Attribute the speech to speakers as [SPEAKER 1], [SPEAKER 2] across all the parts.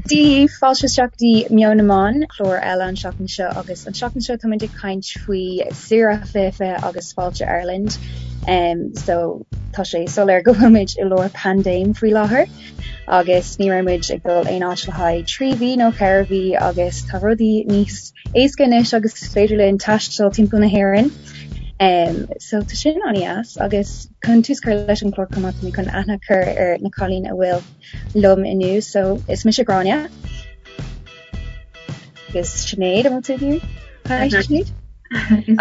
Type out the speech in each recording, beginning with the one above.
[SPEAKER 1] Dia daoibh, fáilte isteach go dtí Meon na Meán, clár eile an tseachtain seo agus an tseachtain seo táimid ag caint faoi Saoire 2020 agus Fáilte Ireland. Um, so tá sé soiléir go bhfuil muid i lár paindéim faoi láthair agus ní raibh muid ag dul aon áit le haghaidh 3 mhí nó 4 mhí agus tá rudaí níos éasca anois agus is féidir linn taisteal timpeall na hÉireann. Um, so tá sin an-deas agus chun tús cur leis an chlár chomh maith tá mé chun aithne a chur ar na cailíní a bhfuil liom inniu. So is mise Gráinne. Agus Sinéad an bhfuil tú ag Hi Sinéad.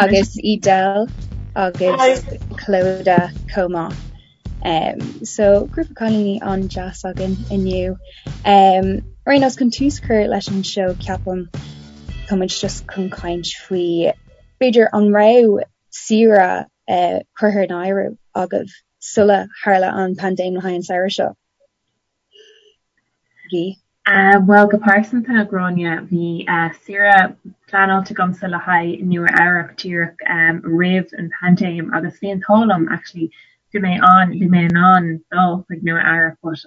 [SPEAKER 1] Agus Edel agus Clodagh chomh maith. Um, so grúpa cailíní an-deas againn inniu. Um, ar aon nós chun tús cur leis an seó ceapaim tá muid just chun caint faoi b'fhéidir an raibh saoire uh, curtha in áirithe agaibh sula tharla an paindéim le haghaidh an samhradh seo? Bhí.
[SPEAKER 2] Bhuel, go pearsanta, a Ghráinne, bhí saoire pleanáilte agamsa le haghaidh Nua Eabhrac díreach roimh an paindéim agus bhí an t-ádh liom actually bhí mé an bhí mé in ann dul chuig Nua Eabhrac but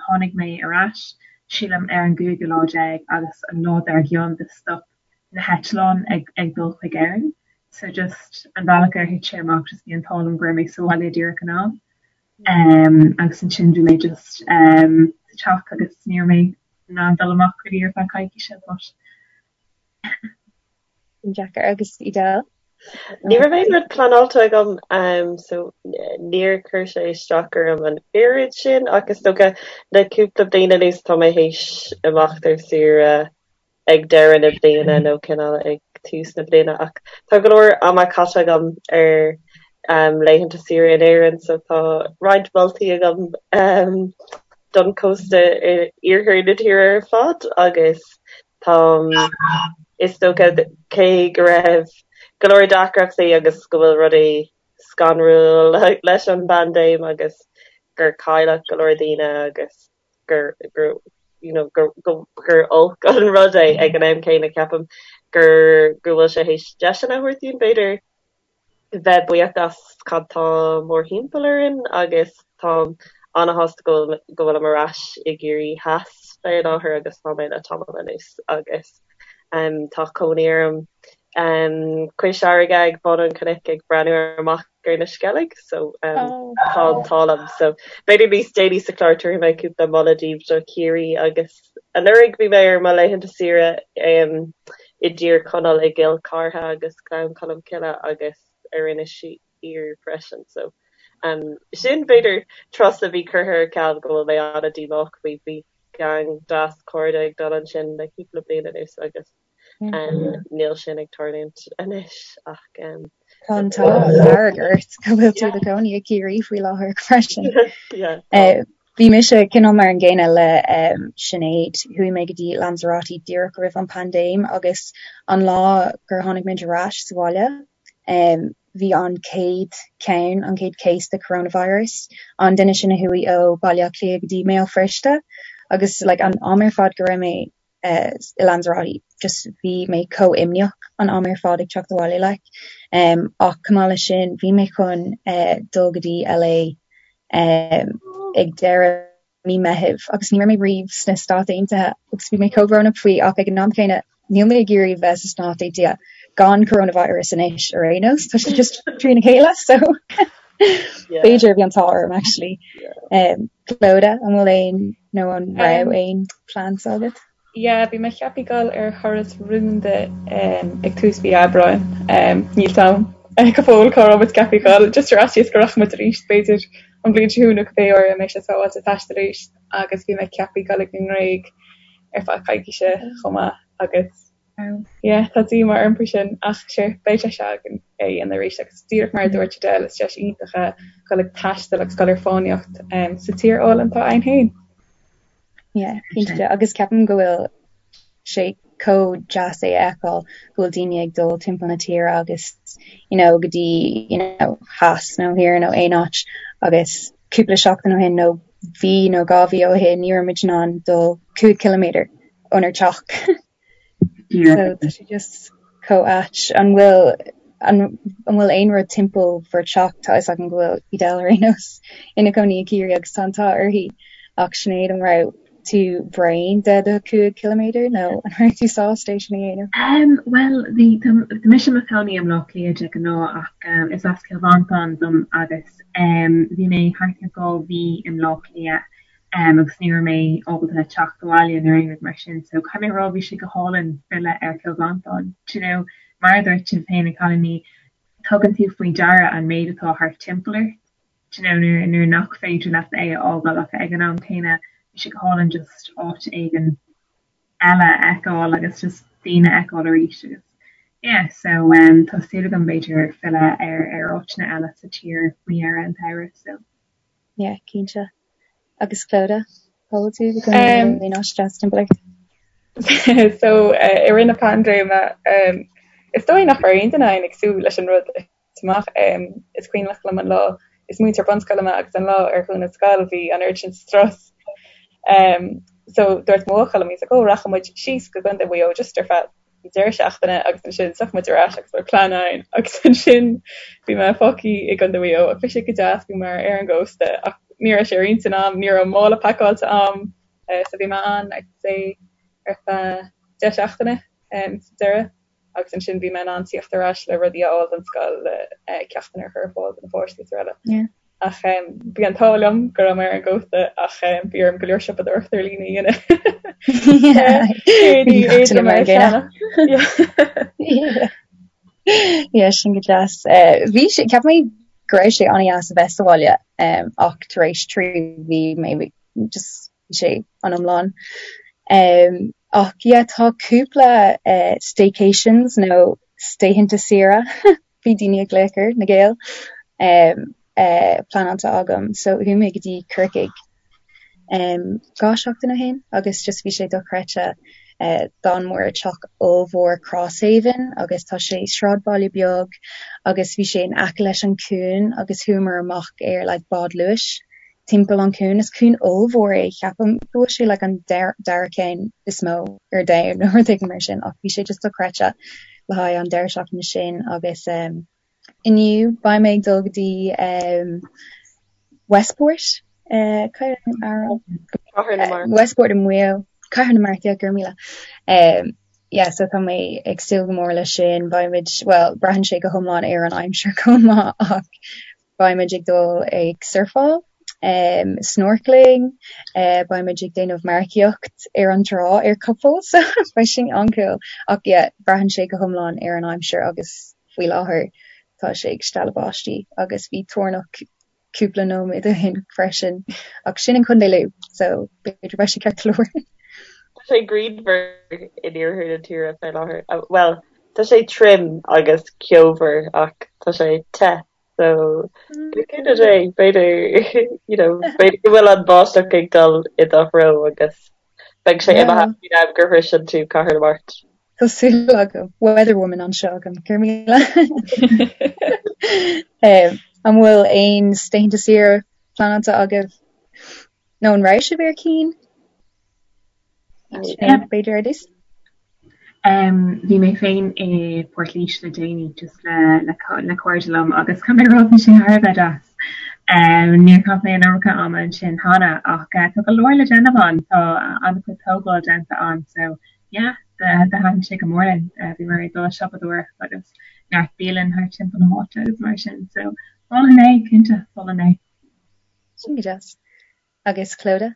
[SPEAKER 2] tháinig mé ar ais sílim ar an gcúigiú lá déag agus an lá dár gcionn do stop na heitleáin ag ag dul chuig Éirinn so just an bealach ar thit sé amach just bhí an t-ádh liom go raibh mé sa bhaile díreach in am um agus ansin bhí mé just um sa teach agus ní raibh mé in ann dul amach really ar feadh coicíse but
[SPEAKER 1] Deacair agus Edel?
[SPEAKER 3] Ní raibh aon rud pleanáilte agam um so níor chuir sé isteach orm an oiread sin ach is dócha le cúpla bliain anuas tá mé théis imeacht ar saoire ag deireadh na bliana nó cineál ag tús na bliana ach tá go leor ama caite agam ar laethanta saoire in Éirinn so tá roinnt moltaí agam don chósta iarthar na tíre ar fad agus tá is dócha cé go raibh go leor deacrachtaí agus go bhfuil rudaí scanrúil leis an bpaindéim agus gur cailleadh go leor daoine agus gur gur you know gur gur gur olc an rud é ag an am céanna ceapaim gur go bhfuil sé théis deiseanna a thabhairt dúinn b'fhéidir bheith buíoch as cad tá mórthimpeall orainn agus táim ana-shásta go bhfuil go bhfuilim ar ais i gCiarraí Theas fé láthair agus tá mé le tamall anuas agus um tá cónaí orm um cois fharraige ag bun an chnoic ag breathnú amach ar na Sceilg so um tá an t-ádh liom so b'fhéidir níos déanaí sa chlár tabharfaidh mé cúpla moladh daoibh do Chiarraí agus anuraidh bhí mé ar mo laethanta saoire um i dTír Chonaill i gCill Chartha agus Gleann Cholm Cille agus ar Inis Oírr freisin so um sin b'fhéidir turas a bhí curtha ar ceal go bhfuil mé an-díomách faoi bhí gang deas cairde ag dul ansin le cúpla bliain anuas agus Níl sin ag tarlúint anois ach.
[SPEAKER 1] Tá an t-ádh dearg ort go bhfuil tú i do chónaí i gCiarraí faoi láthair freisin. Bhí mise cineál mar an gcéanna le Sinéad. Chuaigh mé go dtí Lanzarote díreach roimh an paindéim agus an lá gur tháinig muid ar ais sa bhaile, bhí an chéad cheann, an chéad case de coronavirus, an duine sin a chuaigh ó Baile Átha Cliath go dtí mBéal Feirste agus like an am ar fad go raibh mé i Lanzarote just bhí mé chomh imníoch an am ar fad ag teacht abhaile like. Um, ach chomh maith leis sin bhí mé chun uh, dul go dtí LA um, ag deireadh mí Meithimh agus ní raibh mé riamh sna Stáit Aontaithe agus bhí mé chomh brónach faoi ach ag an am céanna níl mé ag iarraidh bheith sa Stáit Aontaithe gan coronavirus anois ar aon nós, tá sé just trína chéile so b'fhéidir bhí an t-ádh orm actually. Um, Clodagh, an bhfuil aon nó an raibh aon plans agat?
[SPEAKER 4] Yeah, bhí mé ceaptha dul ar thuras rúnda um, ag tús mhí Aibreáin. Um, níl a fhios agam go fóill cá raibh muid ceaptha dul, just ar fhaitíos go rachaidh muid arís b'fhéidir an bhliain seo chugainn nó cibé uair a mbeidh sé sábháilte taisteal arís agus bhí mé ceaptha dul ag an nGréig ar feadh coicíse chomh maith agus Yeah, tá díomá orm faoi sin ach sure, beidh deis againn é a dhéanamh arís agus díreach mar a dúirt Edel, is deis iontach é dul ag taisteal agus dul ar fánaíocht sa tír álainn atá againn féin.
[SPEAKER 1] Yeah, cinnte agus ceapaim go bhfuil sé chomh deas é a fheiceáil go bhfuil daoine ag dul timpeall na tíre agus you know go dtí you know theas nó thiar nó aon áit agus cúpla seachtain ó shin nó mhí nó 2 mhí ó shin ní raibh muid in ann dul 5 ciliméadar ónár dteach. So tá sé just chomh ait. An bhfuil an bhfuil aon rud timpeall bhur teach? Tá fhios agam go bhfuil Edel ar aon nós ina cónaí i gCiarraí agus tá an t-ádh uirthi. Ach Sinéad an raibh tú bréan de do 5 ciliméadar nó an raibh tú sásta é sin a
[SPEAKER 2] dhéanamh? Um, bhuel, bhí tá mise i mo chónaí i mBleá Cliath de ghnáth ach um, is as Cill Mhantáin dom agus um, bhí mé thart ar 2 mhí i mBleá Cliath um, agus ní raibh mé ábalta teacht abhaile nó aon rud mar sin so caithfidh mé a rá bhí sé go hálainn filleadh ar Chill Mhantáin. Do you know, mar a dúirt sibh féin a chailíní, tugann tú faoi deara an méid atá thart timpeall ort. Do you know, nuair, nuair nach féidir leat é a fhágáil ach ag an am céanna bhí sé go hálainn just áit éigin eile a fheiceáil agus just daoine a fheiceáil arís agus yeah so um, tá súil agam b'fhéidir filleadh ar, ar áiteanna eile sa tír faoi dheireadh an tsamhraidh so.
[SPEAKER 1] Yeah, cinnte. Agus Clodagh, cá bhfuil tú i do chónaí um, aon áit deas timpeall
[SPEAKER 4] ort? So uh, i rith na paindéime um, is dóigh nach raibh aon duine againn ag súil leis an rud amach. Is cuimhneach liom an lá, is múinteoir bunscoile mé agus an lá ar dhún an scoil bhí an oiread sin strus. So dúirt mo bhuachaill liom, he's like, oh rachaidh muid síos go Contae Mhaigh Eo just ar feadh deireadh seachtaine agus ansin tiocfaidh muid ar ais agus beidh plean againn agus ansin bhí mé fágtha i gContae Mhaigh Eo ach bhí sé go deas, bhí mé ar an gcósta ach ní raibh sé ar intinn a'm, ní raibh mála pacáilte a'm so bhí mé ann I'd say ar feadh 10 seachtaine sa deireadh. agus ansin bhí mé in ann tíocht ar ais le rudaí a fháil don scoil le ceachtanna a chur ar fáil do na páistí is araile. Ach bhí an t-ádh liom go raibh mé ar an gcósta ach bhí orm go leor siopadóireacht ar líne a dhéanamh.
[SPEAKER 1] Yeah, sin go deas. Bhí sé, cheap mé go raibh sé an-deas a bheith sa bhaile ach tar éis 3 mhí maybe just bhí sé an iomlán. Ach yeah tá cúpla staycations nó laethanta saoire, bhí daoine ag glaoch air, na Gaeil, pleanáilte agam. So chuaigh mé go dtí Corcaigh 2 seachtain ó shin agus just bhí sé dochreidte. D'fhan muid i dteach ollmhór Crosshaven agus tá sé sráidbhaile beag agus bhí sé in aice leis an cuan agus chuamar amach ar like bád luais timpeall an cuan. Is cuan ollmhór é, ceapaim go bhfuil sé like an dara ceann is mó ar domhan nó rud éigin mar sin ach bhí sé just dochreidte le haghaidh an deireadh seachtaine sin agus um, inniu beidh mé ag dul go dtí um, Westport uh, Westport i Maigh Eo Cathair na Mart, yeah, go raibh míle. Um, yeah, so tá mé ag súil go mór leis sin, beimid, well, braitheann sé go hiomlán ar an aimsir chomh maith ach Beimid ag dul ag surfáil, snorkeling, beimid ag déanamh marcaíocht ar an trá ar capall so beidh sin an-cool. Ach yeah, braitheann sé go hiomlán ar an aimsir agus faoi láthair tá sé ag stealladh báistí agus bhí toirneach cúpla nóiméad ó shin freisin. Ach sin in Contae Lú so b'fhéidir beidh sé ceart go leor.
[SPEAKER 3] Tá sé grianmhar in iarthar na tíre fé láthair. Bhuel, tá sé tirim agus ceomhar ach tá sé te. So le cúnamh Dé b'fhéidir you know b'fhéidir go bhfuil an báisteach ag dul i do threo agus beidh sé imithe faoin am gur shroiseann tú Cathair na Mart.
[SPEAKER 1] Tá súil agam. Weather woman anseo agam. Go raibh míle. An bhfuil aon laethanta saoire pleanáilte agaibh? Nó an raibh sibh ar cinn? B'fhéidir ar dtús?
[SPEAKER 2] Bhí mé féin i bPort Laoise le déanaí just le le le cairde liom agus caithfidh mé a rá bhí sé thar a bheith deas. Níor chaith mé an iomarca ama ansin cheana ach tá go leor le déanamh ann, tá an-chuid tógáil déanta ann so yeah thaitin sé go mór linn. Bhíomar ag dul ag siopadóireacht agus neart bialann thart timpeall na háite agus mar sin so mholfainn é, cinnte, mholfainn é.
[SPEAKER 1] Sin go deas. Agus Clodagh?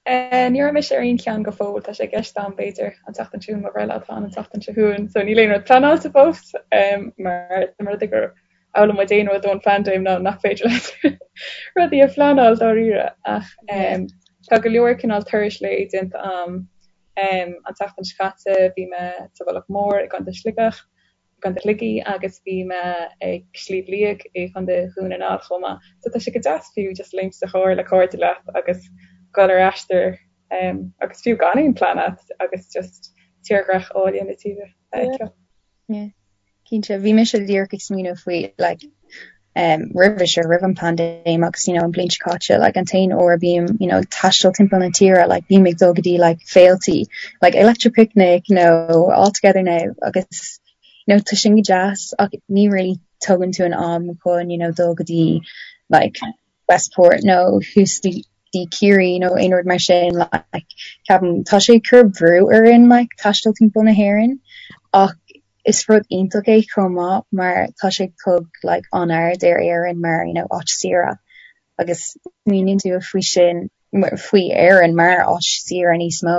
[SPEAKER 4] Ní raibh mise ar aon cheann go fóill, tá sé i gceist agam b'fhéidir an tseachtain seo chugainn, mo bhreithlá atá ann an tseachtain seo chugainn, so níl aon rud pleanáilte fós mar dá mba rud é gur fhoghlaim muid aon rud ón phaindéim ná nach féidir leat rudaí a phleanáil dáiríre ach tá go leor cineál turais lae déanta agam. An tseachtain seo caite bhí mé sa Mhullach Mór i gContae Sligeach gContae Shligigh agus bhí mé ag Sliabh Liag i gContae Dhún na nGall chomh maith. So tá sé go deas fiú just léimt sa charr le cairde leat agus dul ar aistear agus fiú gan aon plean agat agus just tírdhreach áille na tíre a fheiceáil.
[SPEAKER 1] Yeah. Cinnte, bhí mise díreach ag smaoineamh faoi like um, roimhe seo, roimh an paindéim agus you know, an bhliain seo caite, like, an t-aon uair a bím you know, ag taisteal timpeall na tíre, like, bím ag dul go dtí like, féiltí, like, Electric Picnic nó All Together Now agus you know, tá sin go deas ach ní really tógann tú an am chun you know, dul go dtí like, Westport nó thuas. dtí Ciarraí nó aon rud mar sin like ceapaim tá sé ag cur brú orainn like taisteal timpeall na hÉireann ach is rud iontach é chomh maith mar tá sé ag tug like an-aird ar Éirinn mar you know áit saoire agus smaoiníonn tú faoi sin faoi Éirinn mar áit saoire níos mó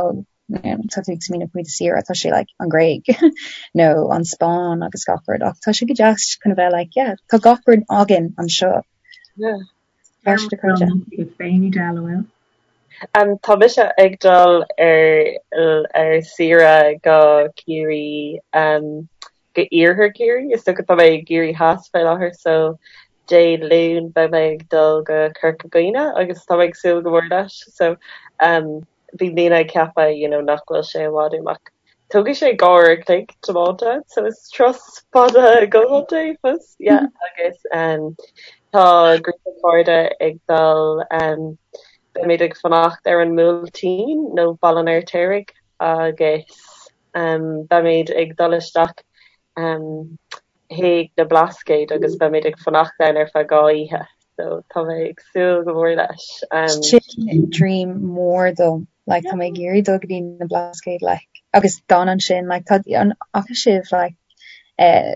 [SPEAKER 1] tá tú ag smaoineamh faoi do saoire tá sé like an Ghréig nó an Spáinn agus gach rud ach tá sé go deas chun a bheith like yeah tá gach rud againn anseo.
[SPEAKER 3] Yeah.
[SPEAKER 2] Um,
[SPEAKER 3] tá mise ag dul ar ar saoire go Ciarraí um, go iarthar Ciarraí, is dócha tá mé i gCiarraí Theas fé láthair so Dé Luain beidh mé ag dul go Corca Dhuibhne agus tá mé ag súil go mór leis so um, bhí daoine ag ceapadh you know nach bhfuil sé i bhfad uaim ach tógfaidh sé 2 uair a chloig tiomáint ann so is turas fada go leor é fós yeah agus um, tá grúpa cairde ag dul um, beimid ag fanacht ar an mBuailtín nó Baile an Fheirtéaraigh agus um, beimid ag dul isteach um, chuig na Blascaoid agus beimid ag fanacht ann ar feadh 2 oíche so tá mé ag súil go mór leis.
[SPEAKER 1] Um, Sin dream mór dom like tá mé ag iarraidh dul go dtí na Blascaoid like agus dán ansin like tá an fhaca sibh like eh,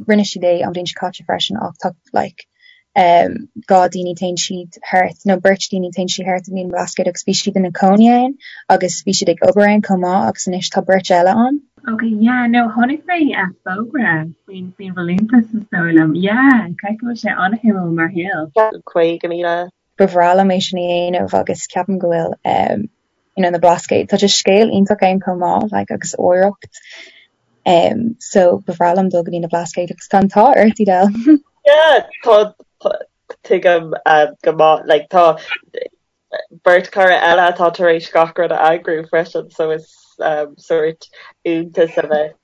[SPEAKER 1] rinne siad é an bhliain seo caite freisin ach tá like um, 2 daoine téann siad thart nó beirt daoine téann siad thart i na Blascaoid agus bhí siad ina cónaí ann agus bhí siad ag obair ann chomh maith agus anois tá beirt eile ann.
[SPEAKER 2] Ok, yeah, no, chonaic mé fógra faoin faoin bhfolúntas is dóigh liom. Yeah, caithfidh go bhfuil sé an-shuimiúil mar shaol.
[SPEAKER 3] 50,000.
[SPEAKER 1] Ba bhreá liom é sin a dhéanamh agus ceapaim go bhfuil um, you know, na Blascaoid, tá just scéal iontach ann chomh maith, like, agus oidhreacht. Um, so ba bhreá liom dul go dtí na Blascaoid agus tá an t-ádh ort, Edel.
[SPEAKER 3] Yeah, tá, tá, tuigim uh, go maith, like, tá beirt cara eile atá tar éis gach rud a eagrú freisin so is um, sórt iontas a bheas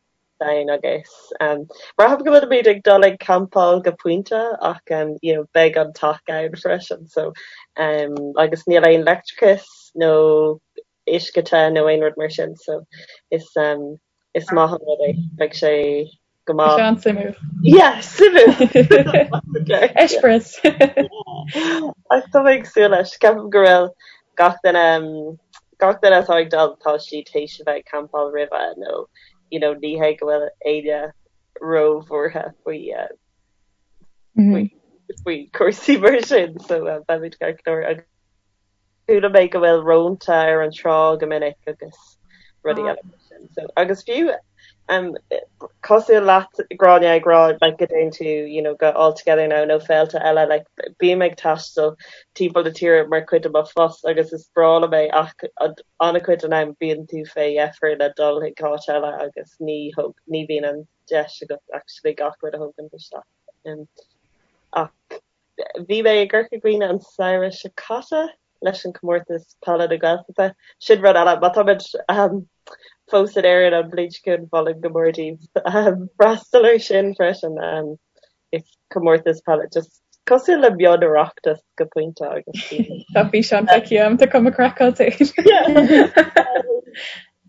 [SPEAKER 3] ann agus um, braithim go bhfuilimid ag dul ag campáil go pointe ach um, you know, beidh an teach ann freisin so um, agus níl aon leictreachas nó uisce te nó aon rud mar sin so is um, is maith an rud é beidh sé go maith.
[SPEAKER 4] Sean suimiúil.
[SPEAKER 3] Yeah, suimiúil.
[SPEAKER 4] Eispéireas.
[SPEAKER 3] Ach tá mé ag súil leis. Ceapaim go bhfuil gach duine um, gach duine atá ag dul tá siad théis a bheith ag campáil roimhe nó you know, ní hé go bhfuil éinne róbhuartha faoi uh, faoi faoi cúrsaí mar sin so uh, beimid ceart go leor agus Chuala mé go bhfuil rónta ar an trá go minic agus rudaí eile mar sin. So, agus fiú um, cosúil leat Gráinne ag rá like, go dtéann tú you know, go All Together Now nó féilte eile like, bím ag taisteal timpeall na tíre mar chuid de mo phost agus is breá liom é ach an-chuid den am bíonn tú fé dheifir le dul chuig áit eile agus ní thóg, ní bhíonn an deis agat actually gach rud a thógaint isteach. Um, ach Bhí mé i gCorca Dhuibhne an samhradh seo caite leis an Comórtas Peile na Gaeltachta. Sin rud eile, má táimid fós in Éirinn an bhliain seo chugainn, mholfainn go mór daoibh freastal air sin freisin. Is comórtas peile just cosúil le mion-Oireachtas go pointe agus
[SPEAKER 4] bíonn. Tá físeán feicthe agam, tá cuma craiceáilte
[SPEAKER 3] air.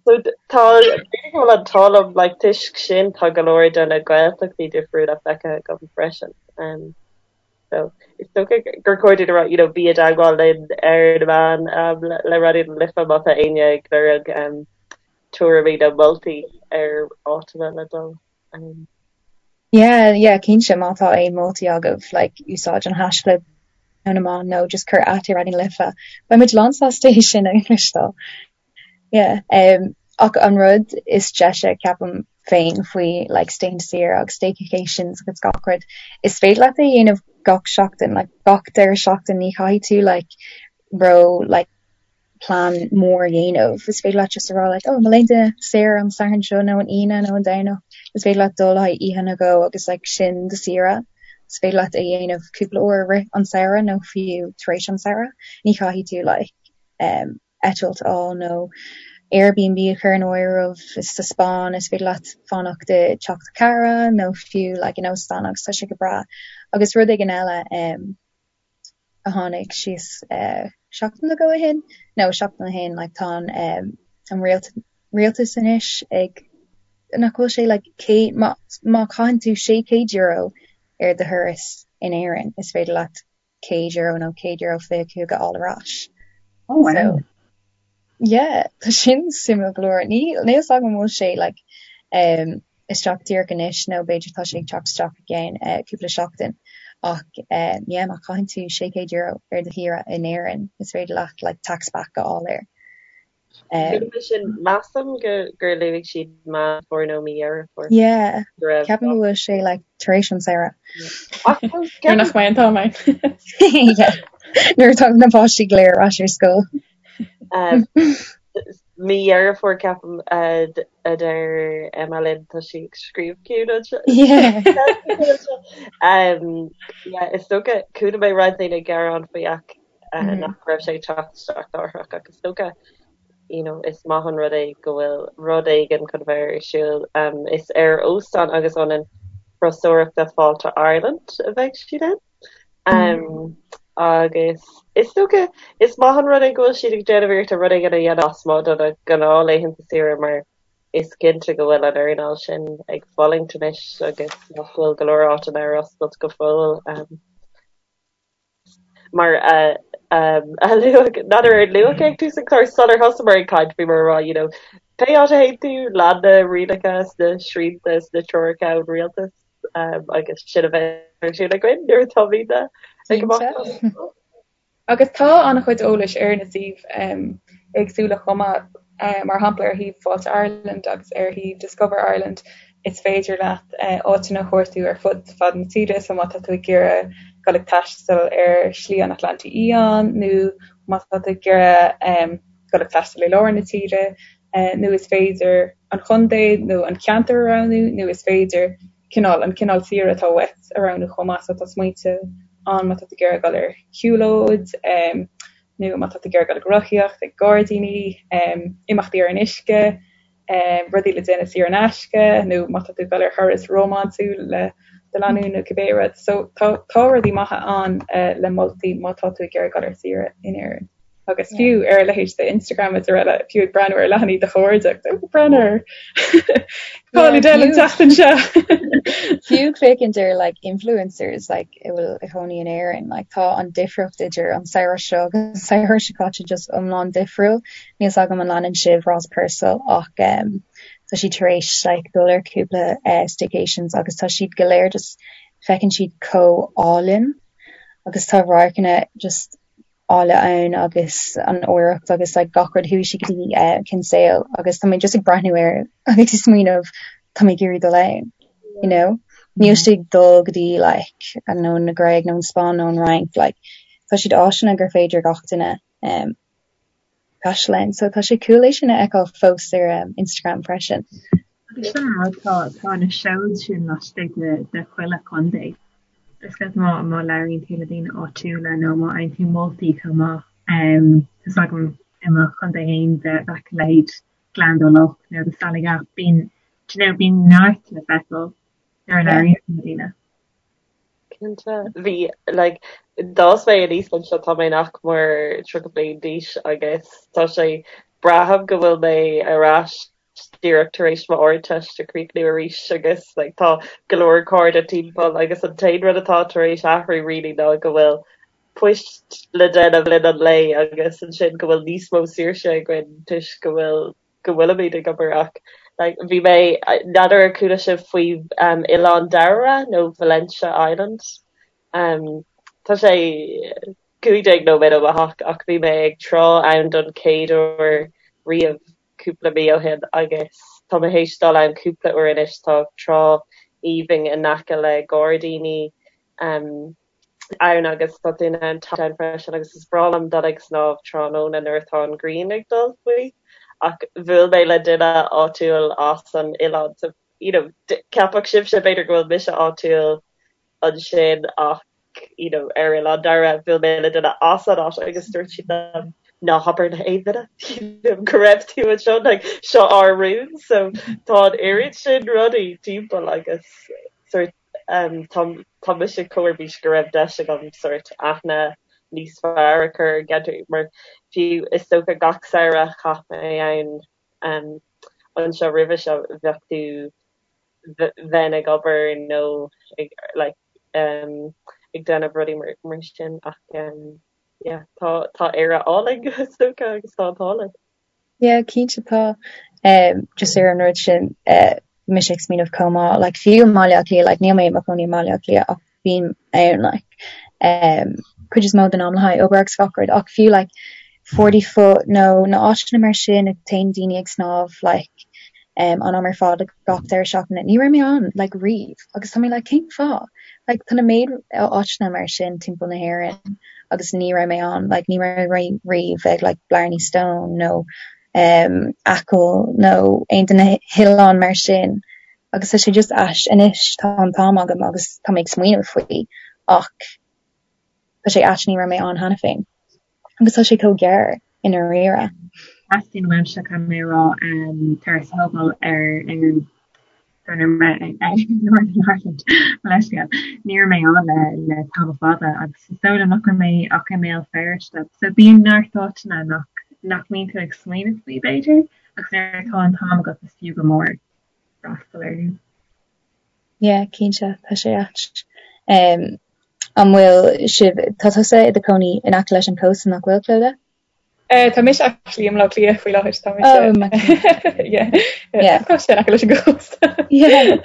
[SPEAKER 3] So tá, b'fhéidir go bhfuil an t-ádh liom, like toisc sin tá go leor de na Gaeltachtaí difriúla feicthe agam freisin. Um, so is dócha gur chóir dúinn a rá, you know, bí i dteagmháil linn ar na meáin um, le, le Raidió na Life má tá éinne ag lorg um, tuairimí nó moltaí ar áiteanna le dul. Um,
[SPEAKER 1] Yeah, yeah, cinnte má tá aon moltaí agaibh, like, úsáid an haischlib nó na meáin nó just cuir at ar Raidió na Life. Beidh muid lán sásta é sin a chloisteáil. Yeah, um, ach an rud is deise ceapaim féin faoi like staying saor agus staycations agus gach rud, is féidir leat é a dhéanamh gach seachtain, like gach deireadh seachtain ní chaithfidh tú like ró like plean mór a dhéanamh. Is féidir leat just a rá like oh mo laethanta saor an Satharn seo nó an Aoine nó an Domhnach, is féidir leat dul le haghaidh oíche nó dhó agus like sin do saoire. Is féidir leat é a dhéanamh cúpla uair i rith an samhradh nó fiú tar éis an samhradh. Ní chaithfidh tú like um, eitilt a fháil nó Airbnb a chur in áireamh sa Spáinn, is féidir leat fanacht i dteach do chara nó fiú like in óstán agus tá sé go breá. Agus rud éigin eile um, a tháinig síos uh, seachtain nó dhó ó shin, nó seachtain ó shin, like, tá an, um, an rialt, rialtas anois ag nach bhfuil sé like, cé, má, má chaitheann tú €600 ar do thuras in Éirinn, is féidir leat €100 nó €125 a fháil ar ais. Oh wow. So yeah, tá sin suimiúil go leor. Ní níl a fhios agam an bhfuil sé like um isteach díreach anois nó b'fhéidir tá sé ag teacht isteach i gceann uh, cúpla seachtain ach uh, yeah, má chaitheann tú €600 ar do shaoire in Éirinn is féidir leat like tax back a fháil air.
[SPEAKER 3] Um, sin measaim go gur luaigh siad Meán Fómhair nó mí Dheireadh
[SPEAKER 1] Fómhair. Yeah, ceapaim go bhfuil sé like tar éis an samhradh.
[SPEAKER 4] Nuair nach mbeidh an t-am ann.
[SPEAKER 1] Yeah, nuair atá na páistí go léir ar ais ar scoil.
[SPEAKER 3] Mí Dheireadh Fómhair ceapaim a deir Emma linn tá sí ag scríobh ciúin anseo.
[SPEAKER 1] Yeah.
[SPEAKER 3] Yeah, is dócha chuala mé roinnt daoine ag gearán faoi ach nach raibh sé ag teacht isteach láithreach ach is dócha you know is maith an rud é go bhfuil rud éigin chun bheith ar siúl. Is ar óstán agus ionad turasóireachta Fáilte Ireland a bheidh siad ann. Agus is dócha is maith an rud é go bhfuil siad ag déanamh iarrachta rud éigin a dhéanamh lasmuigh de na gnáthlaethanta saoire mar is cinnte go bhfuil an earnáil sin ag fulaingt anois agus nach bhfuil go leor áiteanna ar oscailt go fóill. Mar a luadh, n'fheadar ar luadh ag tús an chláir sular thosaíomar ag caint, bhíomar ag rá, you know, pé áit a théann tú, lean na rialacha is na srianta is na treoracha ón rialtas agus sin a bheidh ar siúl againn nuair atáimid ag imeacht.
[SPEAKER 4] Agus tá an-chuid eolais ar na suímh éagsúla chomh maith, mar shampla ar shuíomh Fáilte Ireland agus ar shuíomh Discover Ireland is féidir leat áiteanna a chuartú ar fud fad na tíre, so má tá tú ag iarraidh dul ag taisteal ar Shlí an Atlantaigh Fhiáin nó má tá tú ag iarraidh dul ag taisteal i lár na tíre, nó is féidir an chontae nó an ceantar a roghnú nó is féidir cineál, an cineál saoire atá uait a roghnú chomh maith. So tá smaointe ann má tá tú ag iarraidh dul ar shiúlóid nó má tá tú ag iarraidh dul ag rothaíocht, ag gairdíní, imeachtaí ar an uisce, rudaí le déanamh saor in aisce nó má tá tú ag dul ar thuras rómánsúil le do lánúin nó cibé rud. So tá tá rudaí maithe ann le moltaí má tá tú ag iarraidh dul ar saoire in Éirinn. Agus fiú ar a leithéid de Instagram is araile, fiú ag breathnú ar leathanaigh do chairde, ag breathnú ar cá bhfuil Adele an tseachtain seo.
[SPEAKER 1] Fiú féachaint ar like influencers like a bhfuil ina gcónaí in Éirinn, like tá an difríocht idir an samhradh seo agus an samhradh seo caite just iomlán difriúil. Níl 's agam an leanann sibh Ross Purcell ach um, tá sí tar éis like dul ar cúpla uh, staycations agus tá siad go léir just feiceann siad chomh álainn agus tá radharcanna just áille ann agus an oidhreacht agus like gach rud chuaigh sí go dtí eh, Kinsale agus tá mé just ag breathnú air agus ag smaoineamh tá mé ag iarraidh dul ann you know níl sé ag dul go dtí like I don't know na Gréig nó an Spáinn nó an Fhrainc like tá siad áiteanna gur féidir gach duine um, taisteal ann so tá sé cool é sin a fheiceáil fós ar um, Instagram freisin.
[SPEAKER 2] Agus sin an rud, tá tá na seoid sin laistigh de de chuile chontae. Is ceart má má labhraíonn tú le daoine áitiúla nó má fhaigheann tú moltaí chomh maith. Tá 's agam i mo chontae féin bheadh a leithéid Gleann Dá Loch nó The Sally Gap, bíonn do you know bíonn neart le feiceáil nuair a labhraíonn tú le daoine.
[SPEAKER 3] Cinnte. Bhí like d'fhás mé aníos anseo tá mé nach mór 30 bliain d'aois agus tá sé braithim go bhfuil mé ar ais díreach tar éis mo Ardteist a chríochnú arís agus like tá go leor cairde timpeall agus an t-aon rud atá tar éis athrú really ná go bhfuil poist le déanamh le linn an lae agus ansin go bhfuil níos mó saoirse againn toisc go bhfuil go bhfuilimid ag obair ach like bhí mé n'fheadar ar chuala sibh faoi um, Oileán Dairbhre nó Valentia Island um, tá sé 15 nóiméad ó mo theach ach bhí mé ag trá ann don chéad uair riamh cúpla mí ó shin agus tá mé théis dul ann cúpla uair anois. Tá trá aoibhinn in aice le gairdíní ann agus tá tú in ann teacht ann freisin agus is breá liom dul ag snámh tráthnóna nuair atá an ghrian ag dul faoi. Ach bhuail mé le duine áitiúil as an oileán so you know ceapfadh sibhse b'fhéidir go bhfuil mise áitiúil ansin ach you know ar Oileán Dairbhre bhuail mé le duine as an áit agus dúirt siad liom ná habair le haon duine you know go raibh tú anseo like seo ár rún so tá an oiread sin rudaí timpeall agus sort um tá tá mise chomh ar bís go raibh deis agam sort aithne níos fearr a chur ar an gceantar mar fiú is dócha gach samhradh chaith mé ann um anseo roimhe seo bheadh tú bheinn ag obair nó ag like um ag déanamh rudaí mar mar sin ach um yeah. Yeah tá tá Éire álainn is dócha agus tá an t-ádh linn.
[SPEAKER 1] Yeah cinnte tá. Just ar an rud sin bhí mise ag smaoineamh chomh maith like fiú i mBaile Átha Cliath like níl mé i mo chónaí i mBaile Átha Cliath ach bím ann like cuid is mó den am le haghaidh obair agus gach rud ach fiú like Forty Foot nó na áiteanna mar sin a téann daoine ag snámh like an am ar fad gach deireadh seachtaine ní raibh mé ann like riamh agus tá mé like cén fáth? Like tá na méid áiteanna mar sin timpeall na hÉireann agus ní raibh mé ann like ní raibh mé riamh ag like Blarney Stone nó um Acaill nó aon de na hoileáin mar sin agus tá sé just ait anois tá an t-am agam agus tá mé ag smaoineamh faoi ach tá sé ait ní raibh mé ann cheana féin agus tá sé chomh gearr i ndáiríre.
[SPEAKER 2] Teastaíonn uaimse caithfidh mé a rá turas a thógáil ar ar Northern Ireland mo leithscéal. Ní raibh mé ann le le tamall fada agus is dóigh liom nach raibh mé ach i mBéal Feirste. So bíonn neart áiteanna nach nach mbíonn tú ag smaoineamh faoi b'fhéidir agus nuair atá an t-am agat is fiú go mór freastal orthu.
[SPEAKER 1] Yeah, cinnte, tá sé ait. An bhfuil sibh, tá tusa i do chónaí in aice leis an cósta, nach bhfuil, Clodagh?
[SPEAKER 4] Tá mise actually i mBaile Átha Cliath faoi láthair, tá mise. Oh, my Yeah. Yeah. Tá sé in aice leis an gcósta.
[SPEAKER 1] Yeah.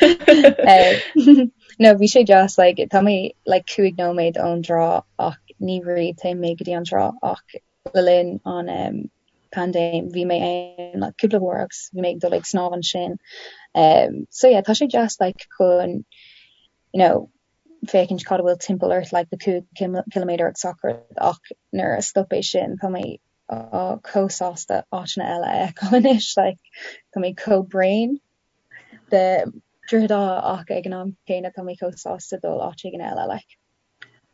[SPEAKER 1] No, bhí sé deas, like, tá mé like 5 nóiméad ón dtrá ach ní riamh téim mé go dtí an trá ach le linn an um, paindéim bhí mé ann like, cúpla uair agus bhí mé ag dul ag snámh ansin. Um, so yeah, tá sé deas like chun you know, féachaint cad a bhfuil timpeall ort like le 5 ciliméadar agus gach rud ach nuair a stop é sin tá mé chomh sásta áiteanna eile a fheiceáil anois like tá mé chomh bréan de Droichead Átha ach ag an am céanna tá mé chomh sásta dul áit éigin eile like.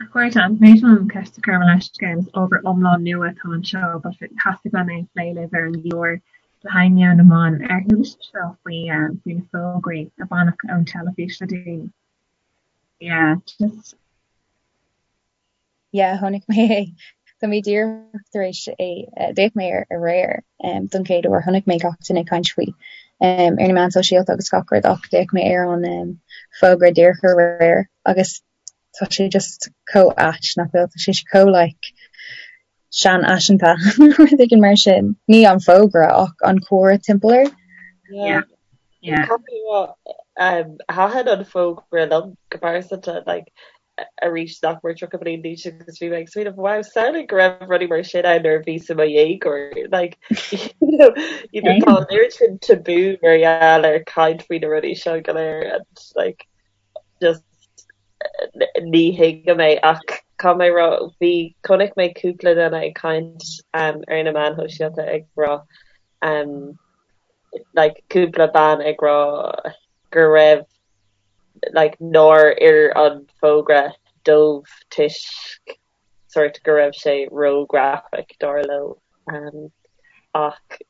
[SPEAKER 2] A chairde, an féidir liom ceist a chur mo leithscéal is ábhar iomlán nua atá anseo but theastaigh uaim é a phlé libh ar an gclár le haghaidh Meon na mBan. Ar chuala sibh seo faoi faoi na fógraí a baineadh ón teilifís le déanaí? Yeah, just.
[SPEAKER 1] Yeah, chonaic mé é. Tá mé díreach tar éis é, d'fhéach mé air aréir don chéad uair, chonaic mé gach duine ag caint faoi ar na meáin sóisialta agus gach rud ach d'fhéach mé ar an fógra díreach aréir agus tá sé just chomh ait nach bhfuil, tá sé chomh like seanfhaiseanta nó rud éigin mar sin. Ní an fógra ach an comhrá timpeall air.
[SPEAKER 3] Yeah. Yeah. Caithfidh mé a rá, um, thaitin an fógra liom go pearsanta, like, arís nach mór 30 bliain d'aois agus bhí mé ag smaoineamh, wow, samhlaigh go raibh rudaí mar sin ann nuair a bhíos i mo dhéagóir. Like, you know, you know, tá an oiread sin tabú mar gheall ar caint faoi na rudaí seo go léir and like, just ní thuigim é ach caithfidh mé a rá bhí chonaic mé cúpla duine ag caint um, ar na meáin shóisialta ag rá um, like, cúpla bean ag rá go raibh like, nár oir an fógra dóibh toisc sort go raibh sé ró-graphic dar leo um, ach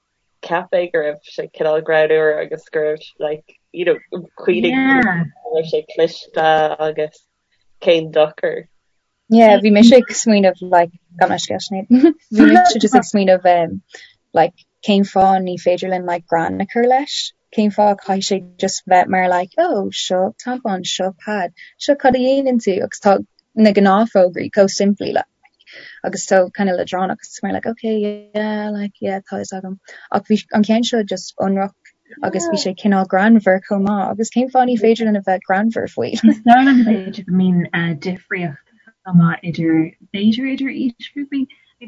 [SPEAKER 3] cheap mé go raibh sé cineál greannmhar agus go raibh like you know cuimhnigh Yeah. go raibh sé cliste agus cén dochar.
[SPEAKER 1] Yeah, bhí mise ag smaoineamh like gabh mo leithscéal Sinéad. Bhí mise just ag smaoineamh um, like cén fáth ní féidir linn like greann a chur leis? Cén fáth caithfidh sé just bheith mar like oh seo tampon, seo pad, seo cad a dhéanann tú agus tá na gnáthfhógraí chomh simplí like agus so kind of leadránach agus mar like okay yeah like yeah tá fhios agam ach bhí an ceann seo just ionraic agus bhí sé cineál greannmhar chomh maith agus cén fáth ní féidir linn a bheith greannmhar faoi?
[SPEAKER 2] Is dóigh liom b'fhéidir go mbíonn eh, difríocht chomh maith idir b'fhéidir idir aoisghrúpaí.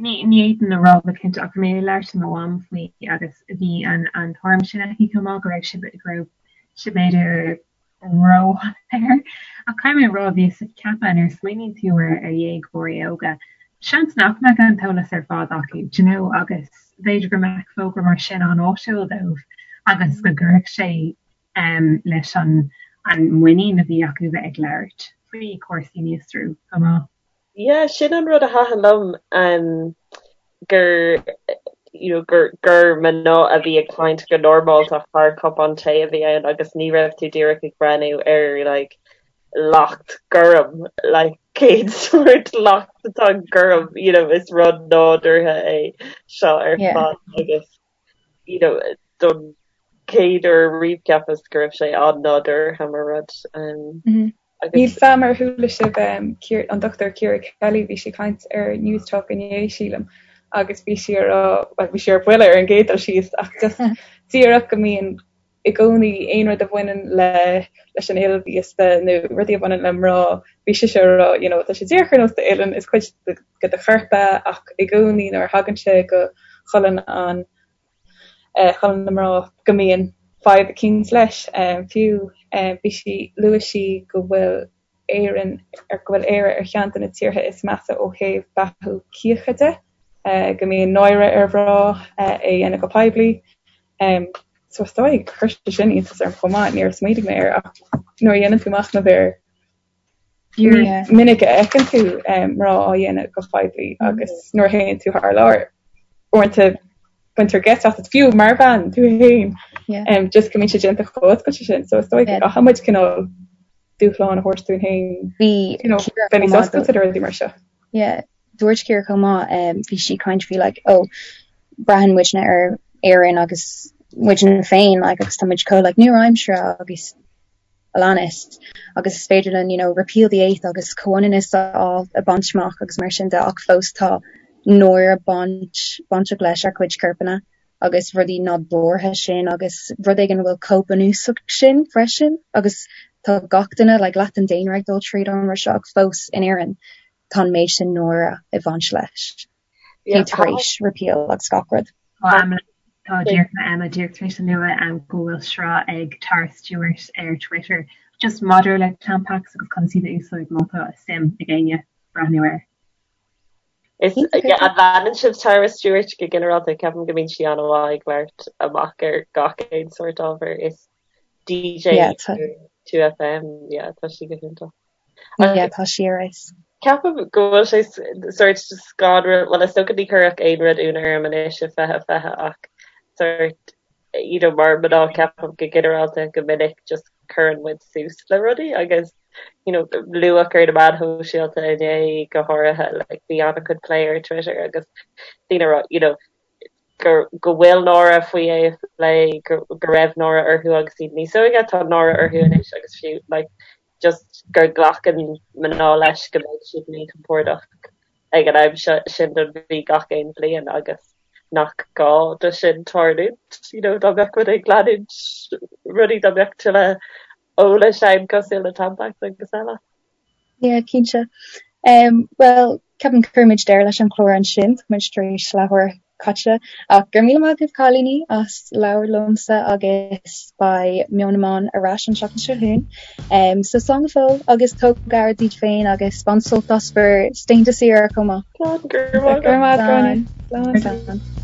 [SPEAKER 2] Ní ní fhéadfainn a rá go cinnte ach bhí mé ag labhairt le mo mham faoi agus bhí an an tuairim sin aici chomh maith go raibh sé go raibh sé b'fhéidir róshoiléir. Ach caithfidh mé a rá, bhíos ag ceapadh, nuair a smaoiníonn tú ar dhéagóirí óga, seans nach mbeadh an t-eolas ar fad acu, do you know, agus b'fhéidir go mbeadh fógra mar sin an-áisiúil dóibh agus go gcuirfeadh sé leis an muinín a bhí acu bheith ag labhairt faoi chúrsaí míostrú chomh maith.
[SPEAKER 3] Yeah, sin an rud a thaitin liom, um, gur, you know, gur, gur mná a bhí ag caint go normálta thar cupán tae a bhí ann agus ní raibh tú díreach ag breathnú ar like lacht gorm, like cén sórt lacht atá gorm, you know, is rud nádúrtha é seo ar Yeah. fad agus you know, don chéad uair riamh cheapas go raibh sé an-nádúrtha mar rud. Um, mm -hmm.
[SPEAKER 4] Níl a fhios a'm ar chuala sibh an Dr Ciara Kelly, bhí sí ag caint ar Newstalk inné sílim agus bhí sí ag rá, bhuel bhí sí ar buile ar an gcéad dul síos ach just díreach go mbíonn i gcónaí aon rud a bhaineann le leis an fhuil mhíosta nó rudaí a bhaineann le mná, bhí sise ag rá you know tá sé díreach ar nós d'uillinn, is cuid de do chorp é ach i gcónaí nuair a thagann sé go cholainn an cholainn na mná go mbíonn fadhb eicínt leis. Fiú bhí sí, luaigh sí go bhfuil Éirinn, go bhfuil Éire ar cheann de na tíortha is measa ó thaobh beathú cíocha de, go mbíonn náire ar mhná é a dhéanamh go poiblí. So is dóigh, chuir sé sin iontas orm chomh maith, níor smaointigh mé air ach nuair a dhéanann tú machnamh air, Ní minic a fheiceann tú mná á dhéanamh go poiblí agus nuair a théann tú thar lear, uaireanta baintear geit asat, fiú mar bhean tú féin, just go mbíonn sé déanta chomh oscailte sin. So is dóigh go gcaithfidh muid cineál dúshlán a thabhairt dúinn féin, you know, bheith níos oscailte do rudaí mar seo.
[SPEAKER 1] Yeah, dúirt Ciara chomh maith, bhí sí ag caint faoi like, oh, braitheann muidne ar Éirinn agus muidne féin like, agus tá muid chomh like, nua-aimseartha agus a leanas agus is féidir linn you know repeal the eighth agus comhionannas a fháil a bhaint amach agus mar sin de ach fós tá náire baint bainteach leis ár gcuid corpanna agus rudaí nádúrtha sin agus rud éigin a bhfuil chomh bunúsach sin freisin agus tá gach duine like leath den daonra ag dul tríd an rud seo ach fós in Éirinn tá an méid sin náire ag baint leis. Yeah, tar éis repeal agus gach rud.
[SPEAKER 2] Tá díreach Emma díreach tar éis a lua go bhfuil sraith ag Tara Stewart ar Twitter just maidir le Tampax agus conas iad a úsáid má tá suim ag éinne breathnú air.
[SPEAKER 3] Is an leanann sibh Tara Stewart go ginearálta ceapaim go mbíonn sí an-mhaith ag labhairt amach ar gach aon sórt ábhar is DJ 2FM yeah, tá sí go hiontach.
[SPEAKER 1] Yeah, tá sí ar fheabhas.
[SPEAKER 3] Ceapaim go bhfuil sé sort scanrúil, bhuel is dócha ní chuirfeadh aon rud ionadh orm anois i 2020 ach sort you know mar mná ceapaim go ginearálta go minic just cuireann muid suas le rudaí agus you know luadh ar na meáin shóisialta inné go háirithe like bhí an-chuid plé ar Twitter agus daoine ag rá you know go go bhfuil náire faoi é a phlé go go raibh náire orthu agus iad níos óige tá náire orthu anois agus fiú like just gur glacann mná leis go mbeidh siad míchompordach ag an am seo sin don mhí gach aon bhliain agus nach gá do sin tarlúint, you know, dá mbeadh muid ag leanúint rudaí dá mbeadh tuilleadh eolais ann cosúil le Tampax agus eile.
[SPEAKER 1] Yeah, cinnte. Um, well, ceapaim cuirfimid deireadh leis an chlár ansin, tá muid tar éis leathuair caite. Ach go raibh míle maith agaibh cailíní as labhairt liomsa agus beidh Meon na mBan ar ais an tseachtain seo chugainn. Um, so slán go fóill agus tóg aire daoibh féin agus bain sult as bhur laethanta saoire chomh maith.
[SPEAKER 3] Slán, go raibh maith agat.
[SPEAKER 4] Go raibh maith agat, Gráinne. Slán.
[SPEAKER 1] Slán.